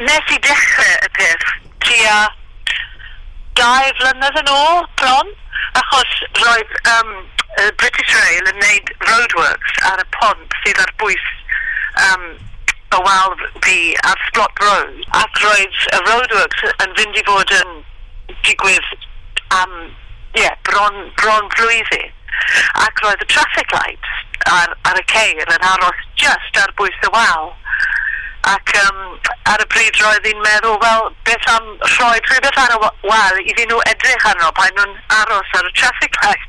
Nes i dechrau y peth tua 2 flynedd yn ôl, bron, achos roedd British Rail yn neud roadworks ar y pont sydd ar bwys y wal fi ar Splott Road, ac roedd y roadworks yn fynd i fod yn digwydd am, yeah, bron flwyddyn. Ac roedd y traffic lights ar y ceir yn aros just ar bwys y wal. Ac ar y pryd roedd hi'n meddwl, wel, beth am rhoi rhywbeth ar y wal iddyn nhw edrych arno pan nhw'n aros ar y traffic lights.